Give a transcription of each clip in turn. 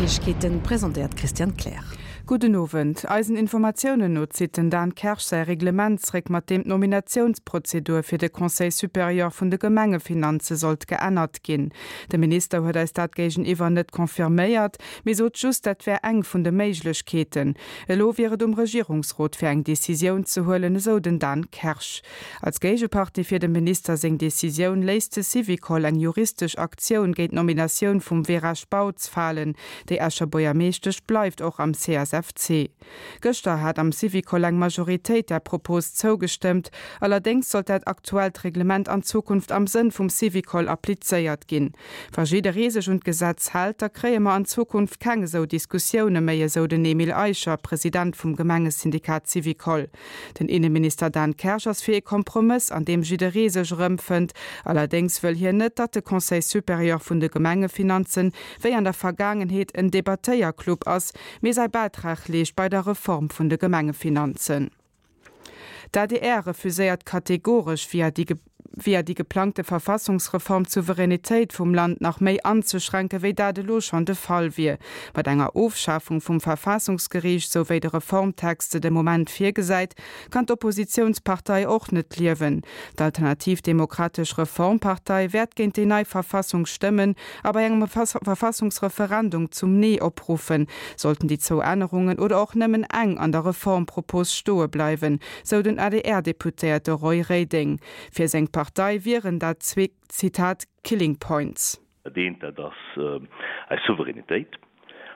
Neiegkeeten, presentéiert d'Christiane Kleer. Gudden Owend. Eisen Informatiounen no zitt den Dan Kersch säi Reglement zréck, mat deem d'Nominatiounsprozedur fir de Conseil supérieur vun de Gemengefinanze sollt geännert ginn. De Minister huet eis dat géigeniwwer net confirméiert, mee sot just, dat wär eng vun de Méiglechkeeten. Elo wier et um Regierungsrot fir eng Decisioun ze huelen, esou den Dan Kersch. Als Géigepartie fir dem Minister seng Decisioun léisst de Syvicol eng juristesch Aktioun géint d'Nominatioun vum Vera Spautz falen. Déi Escher Buergermeeschtesch bleift och am CSFC. Gëschter hat am Syvicol eng Majoritéit där Propos zougestëmmt. Allerdéngs sollt dat aktuellt Reglement an Zukunft am Sënn vum Syvicol applizéiert ginn. Wa jidderee sech un d'Gesetz hält, da kréie mer an Zukunft keng esou Diskussioune méi, esou den Emile Eicher, President vum Gemengesyndikat Syvicol. Den Inneminister Dan Kersch ass fir ee Kompromëss, an deem jidderee sech erëmfënnt. Allerdéngs wëll hien net, datt de Conseil supérieur vun de Gemengefinanzen, wéi an der Vergaangenheet, en Debattéierclub ass, mee säi Bäitrag leescht bei der Reform vun de Gemengefinanzen. D'ADR refuséiert kategoresch, via déi via déi geplangte Verfassungsreform d'Souveränitéit vum Land nach méi anzeschränken, wéi dat elo schonn de Fall wier. Mat enger Ofschafung vum Verfassungsgeriicht, sou wéi de Reformtext se de Moment virgesäit, kann d'Oppositiounspartei och net liewen. D'Alternativ Demokratesch Reformpartei wäert géint déi nei Verfassung stëmmen a bei engem Verfassungsreferendum zum Nee opruffen, sollten déi zwou Ännerungen oder och nëmmen eng an der Reformpropos stoe bleiwen, sou den ADR-Deputéierte Roy Reding. Fir seng Partei wieren dat zwee, Zitat, killing points. Dat eent, dat ass eis Souveränitéit.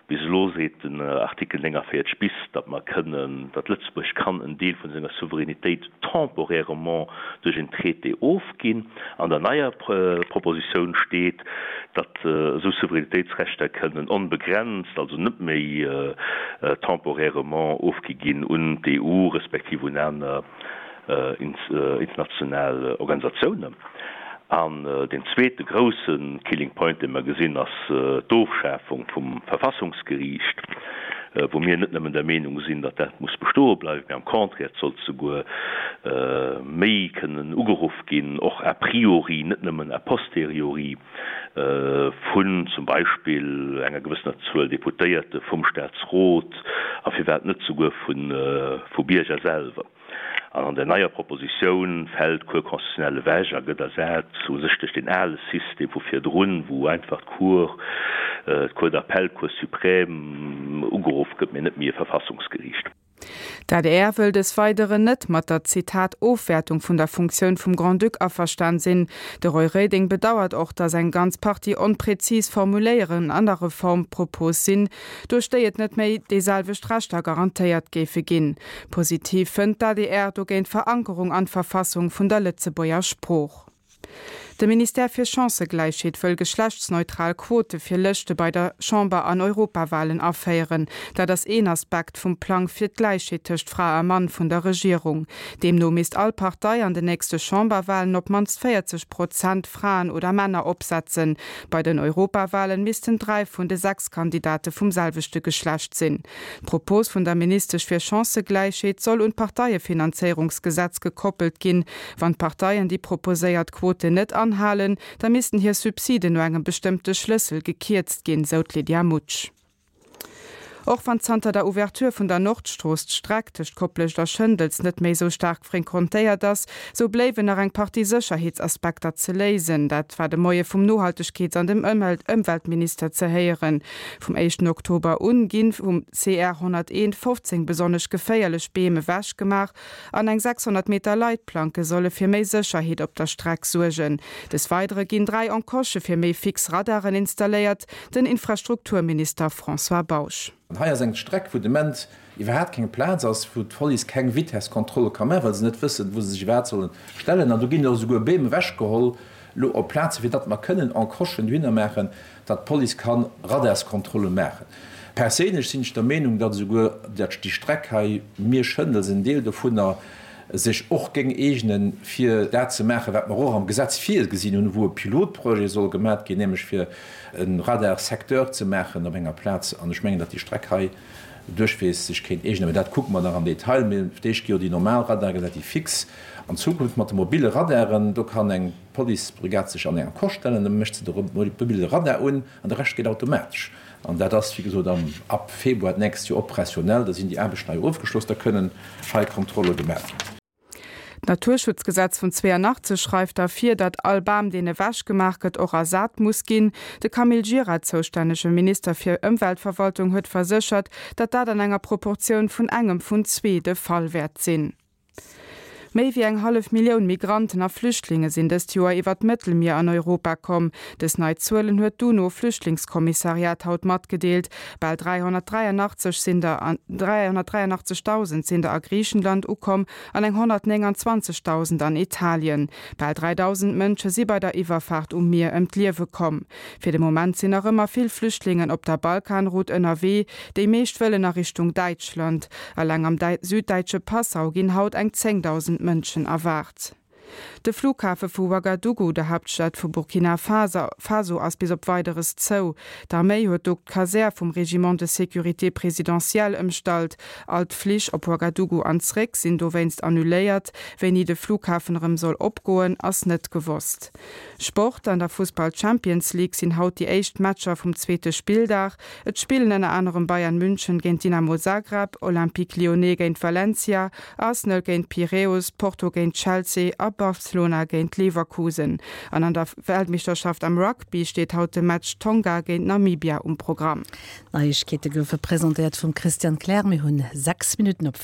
Bis elo seet den Artikel 49 bis, datt mer kënnen, datt Lëtzebuerg kann en Deel vun senger Souveränitéit temporairement duerch en Traité ofginn. An der neier Propositioun steet, datt esou Souveränitéitsrechter kënnen onbegrenzt, also net méi temporairement ofgi ginn un d'EU respektiv un aner international Organisatiounen. An deen zweete grousse Killing Point, dee mer gesinn, ass d'Ofschafung vum Verfassungsgeriicht, wou mir net nëmmen der Meenung sinn, datt dat muss bestoe bleiwen, mee am Contraire, et sollt souguer méi kënnen ugeruff ginn, och a priori, net nëmmen a posteriori, vun zum Beispill enger gewëssener Zuel Deputéierte vum Staatsrot a firwat net souguer vu Bierger selwer. An an der neier Propositioun fält d'Cour constitutionnelle ewech a gëtt ersat u sech duerch deen ale System vu virdrun, wou einfach d'Cour, d'Cour d'appel, d'Cour suprême ugeruff gëtt, mee net méi e Verfassungsgeriicht. D'adr wëll des Weideren net mat der, Zitat, Ofwäertung vun der Funktioun vum Grand-Duc averstan sinn. De Roy Reding bedauert och, datt eng ganz Partie onprezis Formuléieren an der Reformpropos sinn, duerch déi et net méi déi selwecht Rechter garantéiert géife ginn. Positiv fënnt d'ADR dogéint d'Verankerung an d'Verfassung vun der Lëtzebuerger Sprooch. De Ministère fir Chancëgläichheet wëll geschlechtsneutral Quote fir Lëschte bei der Chamber an Europawalen aféieren. Dat ass een Aspekt vum Plang fir d'Gläichheet tëscht Fra a Mann vun der Regierung. Deemno misst all Partei an den nächste Chamberwalen op d'mannst 40 Prozent Fraen oder Männer opsetzen. Bei den Europawalen missten 3 vun de 6 Kandidate vum selwechte Geschlecht sinn. D'Propos vun der Ministesch fir Chancëgläichheet soll un d'Parteiefinanzéierungsgesetz gekoppelt ginn. Wann d'Parteien déi proposéiert Quoten net anhalen, da missten hir Subsiden no engem bestëmmte Schlëssel gekierzt ginn, sou d'Lydia Mutsch. Och wann zanter der Ouverture vun der Nordstrooss d'Streck tëscht Koplescht a Schëndels net méi esou staark fréquentéiert ass, sou bléiwen nach eng Partie Sécherheetsaspekter ze léisen. Dat war de Moie vum Nohaltegkeets an dem Ëmweltminister ze héieren. Vum éischten Oktober un ginn vum CR 101 15 besonnesch geféierlech Beem ewech gemaach an eng 600 Meter Leitplanke solle fir méi Sécherheet op der Streck suergen. Des Weidere ginn 3 Encoche fir méi fix Radaren installéiert. Den Infrastrukturminister François Bausch. An hei ass eng Streck, wou de Moment iwwerhaapt keng Plaz ass, wou d'Police keng Vitesskontrolle ka maachen, well se net wëssen, wou se sech iwwerhaapt solle stellen. An do ginn och esouguer Beem ewechgeholl elo op Plaze fir datt mer kënnen Encochen dohinner maachen, datt d'Police ka Radarskontrolle maachen. Perséinlech sinn ech der Meenung, datt esouguer déi Streck hei Miersch-Schëndels, en Deel dovunner, sech och géing eegnen, fir dat ze maachen, wat mer och am Gesetz virgesinn hunn, wou e Pilotprojet soll gemat ginn, nämlech fir e Radar-secteur ze maachen op enger Plaz. An ech mengen, datt déi Streck hei. duerchweegs sech kéint eegnen. Mä dat kucke mer nach am Detail. Mee fir d'éischt gi jo déi normal Radare gesat, déi fix. An Zukunft mat de mobile Radaren, do kann eng Policebrigade sech an eng Encoche stellen, da mécht se de mobile Radar un an de Rescht geet automatesch. An dat ass, wéi gesot, am ab Februar d'nächst Joer operationell. Da sinn déi Aarbechten hei ofgeschloss, da kënnen hei Kontrolle gemaach ginn. D'Naturschutzgesetz vun 82 schreift da vir, datt all Bam, deen ewech gemaach gëtt, och ersat muss ginn. De Camille Gira, zoustännege Minister fir Ëmweltverwaltung, huet verséchert, datt dat an enger Proportioun vun engem vun zwee de Fall wäert sinn. Méi wéi eng hallef Millioun Migranten a Flüchtlinge sinn dëst Joer iwwer d'Mëttelmier an Europa komm. Dës nei Zuelen huet d'UNO-Flüchtlingskommissariat haut matgedeelt. Bal 383 sinn der 383.000 sinn der a Griichenland ukomm an eng 129.000 an Italien. Bal 3.000 Mënsche si bei der Iwwerfaart um Mier ëm d'Liewe komm. Fir de Moment sinn nach ëmmer vill Flüchtlingen op der Balkanroute ënnerwee. Déi meescht wëllen a Richtung Däitschland. Eleng am süddäitsche Passau ginn haut eng 10.000 Mënschen erwaart. De Flughafe vu Ouagadougou, der Haaptstad vu Burkina Faso, ass bis op Weideres zou. D'Arméi huet do d'Kasär vum Régiment de sécurité présidentielle ëmstallt. All d'Flich op Ouagadougou an zréck sinn dowéinst annuléiert. Wéini de Flughafen erëm soll opgoen, ass net gewosst. Sport, An der Fussball-Champions League sinn haut déi éischt Matcher vum zweete Spilldag. Et spillen ënner anerem Bayern München géint Dynamo Zagreb, Olympique Lyonnais géint Valencia, Arsenal géint Piräus, Porto géint Chelsea a Barcelona géint Leverkusen. An an der Weltmeeschterschaft am Rugby steet haut de Match Tonga géint Namibia um Programm. D'Neiegkeete goufe presentéiert vum Christian Kleer. Mir hunn 6 Minutten op.